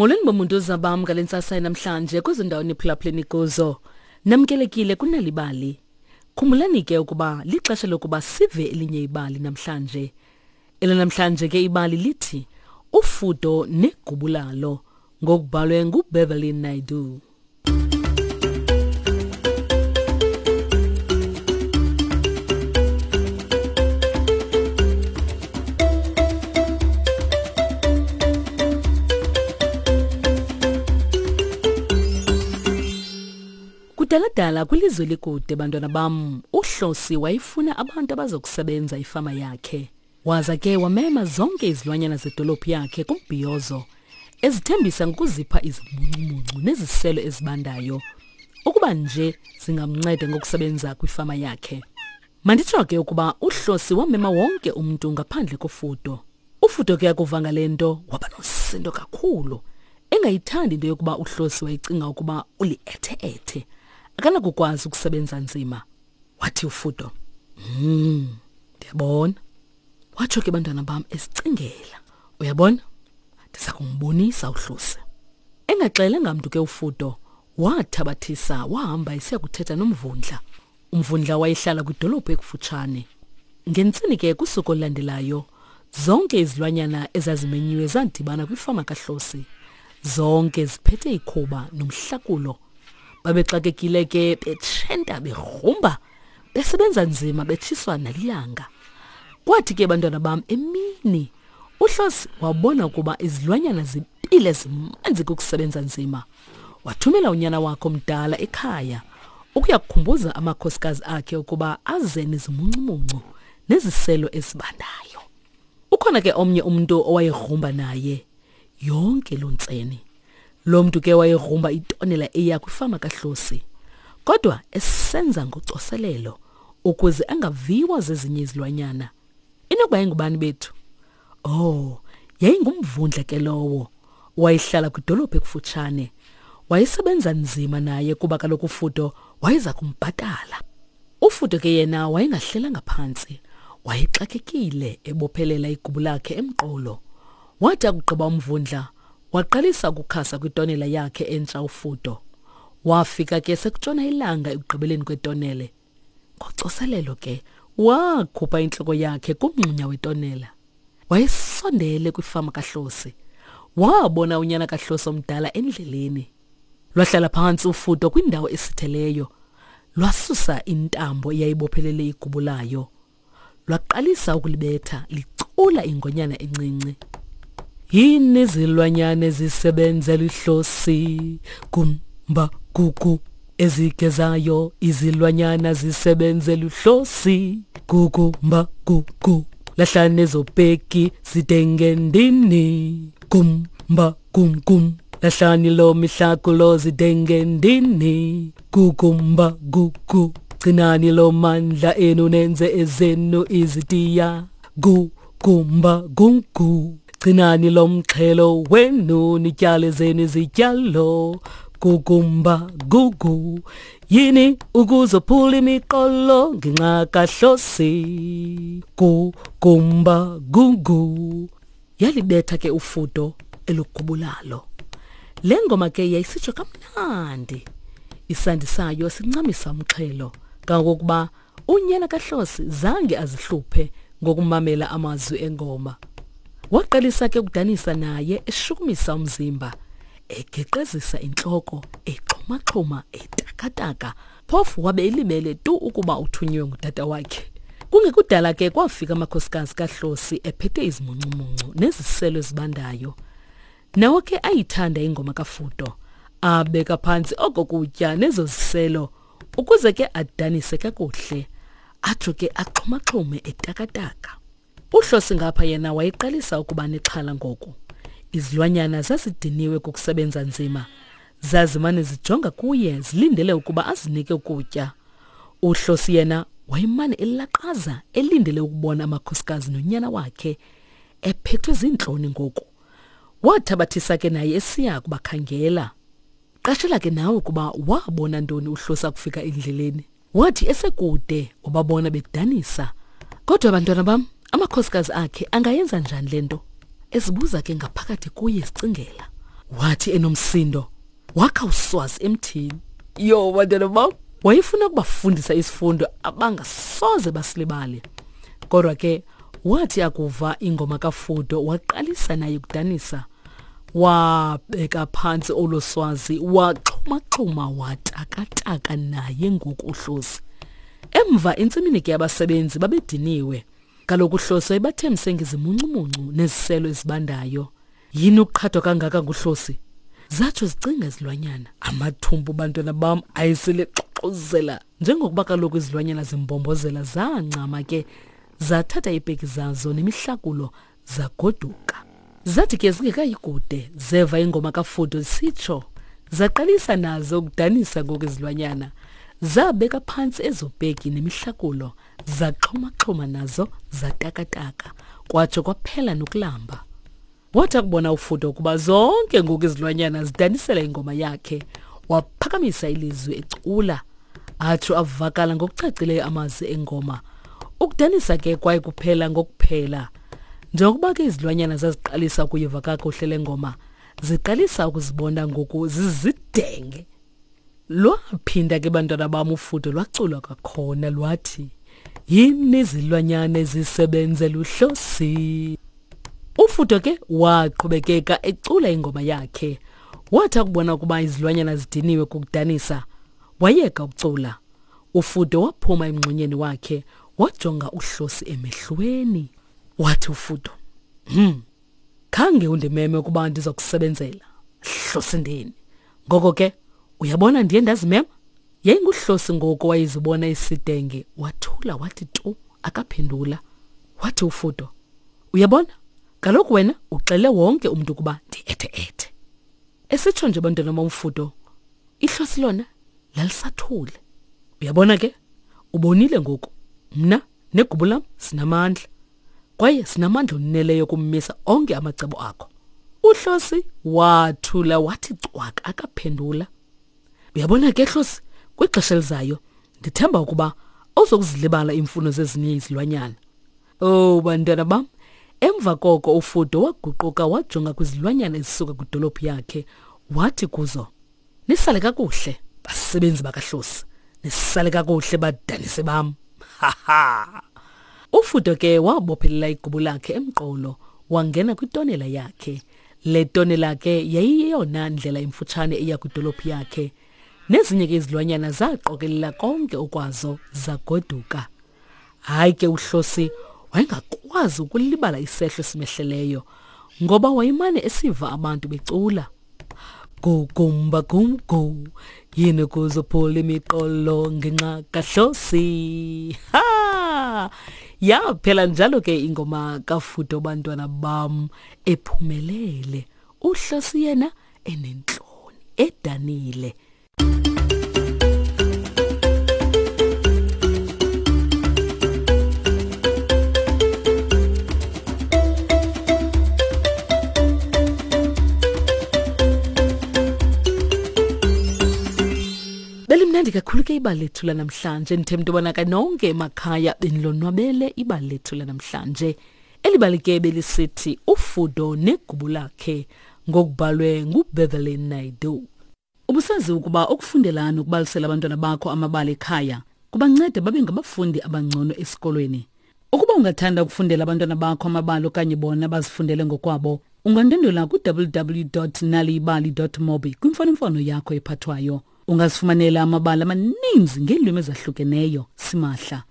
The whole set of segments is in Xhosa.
Molweni bomuntu zabam ngale ntsasa namhlanje kwezo ndawo niphulaphuleni kuzo. Namkelekile kunalibali. Khumbulani ke ukuba lixesha lokuba sive elinye ibali namhlanje. Elanamhlanje ke ibali lithi Ufudo negubu lalo ngokubhalwe nguBeverly Naidoo. Kudaladala kwilizwe likude bantwana bam, uHlosi wayefuna abantu abazokusebenza ifama yakhe. Waza ke wamema zonke izilwanyana zedolophu yakhe kumbhiyozo, ezithembisa ngokuzipha izimuncumuncu neziselo ezibandayo ukuba nje zingamnceda ngokusebenza kwifama yakhe. Manditsho ke ukuba uHlosi wamema wonke umntu ngaphandle koFudo. UFudo ke akuva ngale nto waba nosisindo kakhulu, engayithandi into yokuba uHlosi wayecinga ukuba uliethe-ethe, akanakukwazi ukusebenza nzima. Wathi uFudo, "Hmm, ndiyabona." Watsho ke bantwana bam esicingela. Uyabona? Ndiza kumbonisa uHlosi. Engaxelanga mntu ke uFudo, wathabathisa wahamba esiya kuthetha nomvundla. Umvundla wayehlala kwidolophu ekufutshane. Ngentseni ke kusuku olulandelayo, zonke izilwanyana ezazimenyiwe zadibana kwifama kaHlosi. Zonke ziphethe ikhuba nomhlakulo. Babexakekile ke betshenta begrumba, besebenza nzima betshiswa nalilanga. Kwathi ke bantwana bam emini, uHlosi wabona ukuba izilwanyana zipile zimanzi kukusebenza nzima. Wathumela unyana wakhe omdala ekhaya ukuya kukhumbuza amakhosikazi akhe ukuba aze nezimuncumuncu neziselo ezibandayo. Ukhona ke omnye umntu owayegrumba naye yonke loo ntseni. Lo mntu ke wayegrumba itonela eya kwifama kaHlosi, kodwa esenza ngocoselelo ukuze angaviwa zezinye izilwanyana. Inokuba yayingubani bethu? Oh, yayingumvundla ke lowo. Wayehlala kwidolophu ekufutshane. Wayesebenza nzima naye kuba kaloku uFudo wayeza kumbhatala. UFudo ke yena wayengahlelanga phantsi. Wayexakekile ebophelela igubu lakhe emqolo. Wathi akugqiba umvundla, waqalisa ukukhasa kwitonela yakhe entsha uFudo. Wafika ke sekutshona ilanga ekugqibeleni kwetonele. Ngocoselelo ke wakhupha intloko yakhe kumngxunya wetonela. Wayesondele kwifama kaHlosi. Wabona unyana kaHlosi omdala endleleni. Lwahlala phantsi ufudo kwindawo esitheleyo. Lwasusa intambo eyayibophelele igubu layo. Lwaqalisa ukulibetha licula ingonyana encinci. Yini izilwanyana ezisebenzela ihlosi gumba gugu ezigezayo izilwanyana zisebenzela uhlosi gugumba gugu lahlane ezopeki zidengendini gumba gum gum lahlani lo mihlakulo zidengendini gugumba gugu gcinani lo mandla enu nenze ezenu izitiya gugumba gugu gcinani lo mxhelo wenu nityale zenu izityalo gugumba gugu yini ukuzophula imiqolo ngenxa kahlosi gugumba gugu yalibetha ke ufudo elugubulalo le ngoma ke yayisitsho kamnandi isandi sayo sincamisa umxhelo kangokuba unyana kaHlosi zange azihluphe ngokumamela amazwi engoma waqalisa ke ukudanisa naye eshukumisa umzimba egeqezisa intloko exhumaxhuma etakataka phofu wabe elibele tu ukuba uthunyiwe ngutata wakhe kungekudala ke kwafika amakhosikazi kaHlosi ephethe izimuncumuncu neziselo ezibandayo nawo ke ayithanda ingoma kaFudo abeka phantsi oko kutya nezo ziselo ukuze ke adanise kakuhle atsho ke axhumaxhume etakataka UHlosi ngapha yena wayeqalisa ukuba nexhala ngoku. Izilwanyana zazidiniwe kukusebenza nzima. Zazimane zijonga kuye zilindele ukuba azinike ukutya. UHlosi yena wayemane elaqaza elindele ukubona amakhosikazi nonyana wakhe ephethwe ziintloni ngoku. Wathabathisa ke naye esiya kubakhangela. Qashela ke nawe ukuba wabona ntoni uHlosi akufika endleleni. Wathi esekude wababona bedanisa. Kodwa bantwana bam, amakhosikazi akhe angayenza njani le nto? Ezibuza ke ngaphakathi kuye esicingela. Wathi enomsindo wakha uswazi emthini. Yho, bantwana bam, wayefuna ukubafundisa isifundo abangasoze basilibale. Kodwa ke wathi akuva ingoma kaFudo waqalisa naye ukudanisa. Wabeka phantsi olo swazi waxhumaxhuma watakataka naye ngoku uHlosi. Emva entsimini ke abasebenzi babediniwe. Kaloku uHlosi wayebathembise ngezimuncumuncu neziselo ezibandayo. Yini ukuqhathwa kangaka nguHlosi? Zatsho zicinga izilwanyana. Amathumbu bantwana bam ayesele xoxozela. Njengokuba kaloku izilwanyana zimbombozela zancama ke zathatha iipeki zazo nemihlakulo zagoduka. Zathi ke zingekayi kude zeva ingoma kaFudo isitsho zaqalisa nazo ukudanisa ngoku izilwanyana. Zabeka phantsi ezo peki nemihlakulo zaxhumaxhuma nazo zatakataka kwatsho kwaphela nokulamba. Wathi akubona uFudo ukuba zonke ngoku izilwanyana zidanisela ingoma yakhe, waphakamisa ilizwi ecula, atsho avakala ngokucacileyo amazwi engoma. Ukudanisa ke kwaye kuphela ngokuphela. Njengokuba ke izilwanyana zaziqalisa ukuyiva kakuhle le ngoma, ziqalisa ukuzibona ngoku zizidenge. Lwaphinda ke bantwana bam ufudo lwaculwa kwakhona lwathi yini izilwanyana ezisebenzela uhlosi. Ufudo ke waqhubekeka ecula ingoma yakhe. Wathi akubona ukuba izilwanyana zidiniwe kukudanisa, wayeka ukucula. Ufudo waphuma emngxunyeni wakhe wajonga uhlosi emehlweni. Wathi ufudo, Khange undimeme ukuba ndiza kusebenzela, hlosindini. Ngoko ke, uyabona ndiye ndazimema? Yayinguhlosi ngoku wayezibona isidenge, wathula wathi tu, akaphendula. Wathi uFudo, uyabona, kaloku wena uxele wonke umntu ukuba ndi-ethe-ethe. Esitsho nje bantwana bomfudo, ihlosi lona lalisathule. Uyabona ke, ubonile ngoku, mna negubu lam sinamandla. Kwaye sinamandla oneleyo okummisa onke amacebo akho. Uhlosi wathula wathi cwaka akaphendula. Uyabona ke Hlosi, kwixesha elizayo ndithemba ukuba awuzokuzilibala iimfuno zezinye izilwanyana. Oh bantwana bam, emva koko uFudo waguquka wajonga kwizilwanyana ezisuka kwidolophu yakhe wathi kuzo, Nisale kakuhle basebenzi bakaHlosi, nisale kakuhle badanisi bam. Ha ha. Ufudo ke wabophelela igubu lakhe emqolo wangena kwitonela yakhe. Le tonela ke yayiyeyona ndlela imfutshane eya kwidolophu yakhe. Nezinye ke izilwanyana zaqokelela konke okwazo zagoduka. Hayi ke uHlosi wayengakwazi ukulibala isehlo esimehleleyo ngoba wayemane esiva abantu becula. Go gumba gum go yini kuzophula imiqolo ngenxa kaHlosi. Ha! Yaphela njalo ke ingoma kaFudo bantwana bam ephumelele. UHlosi yena enentloni edanile. Belimnandi kakhulu ke ibali lethu lanamhlanje ndithemba into yobana ke nonke emakhaya benilonwabele ibali lethu lanamhlanje. Eli bali ke belisithi uFudo negubu lakhe ngokubhalwe nguBeverly Naidoo. Ubusazi ukuba ukufundela nokubalisela abantwana bakho amabali ekhaya kubanceda babe ngabafundi abangcono esikolweni. Ukuba ungathanda ukufundela abantwana bakho amabali okanye bona bazifundele ngokwabo, ungandwendwela ku-www.naliyibali.mobi kwimfonomfono yakho ephathwayo. Ungazifumanela amabali amaninzi ngeelwimi ezahlukeneyo simahla.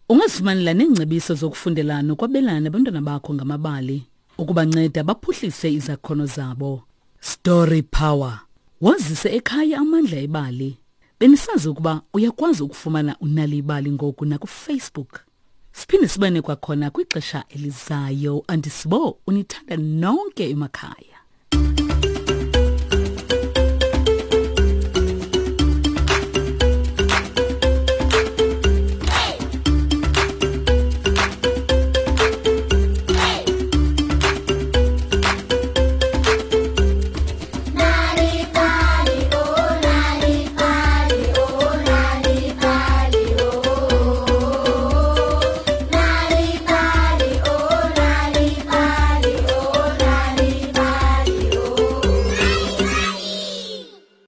Ungazifumanela neengcebiso zokufundela nokwabelana nabantwana bakho ngamabali ukubanceda baphuhlise izakhono zabo. Story Power. Wazise ekhaya amandla ebali. Benisazi ukuba uyakwazi ukufumana uNal'ibali ngoku nakuFacebook. Siphinde sibane kwakhona kwixesha elizayo. Andisibo unithanda nonke emakhaya.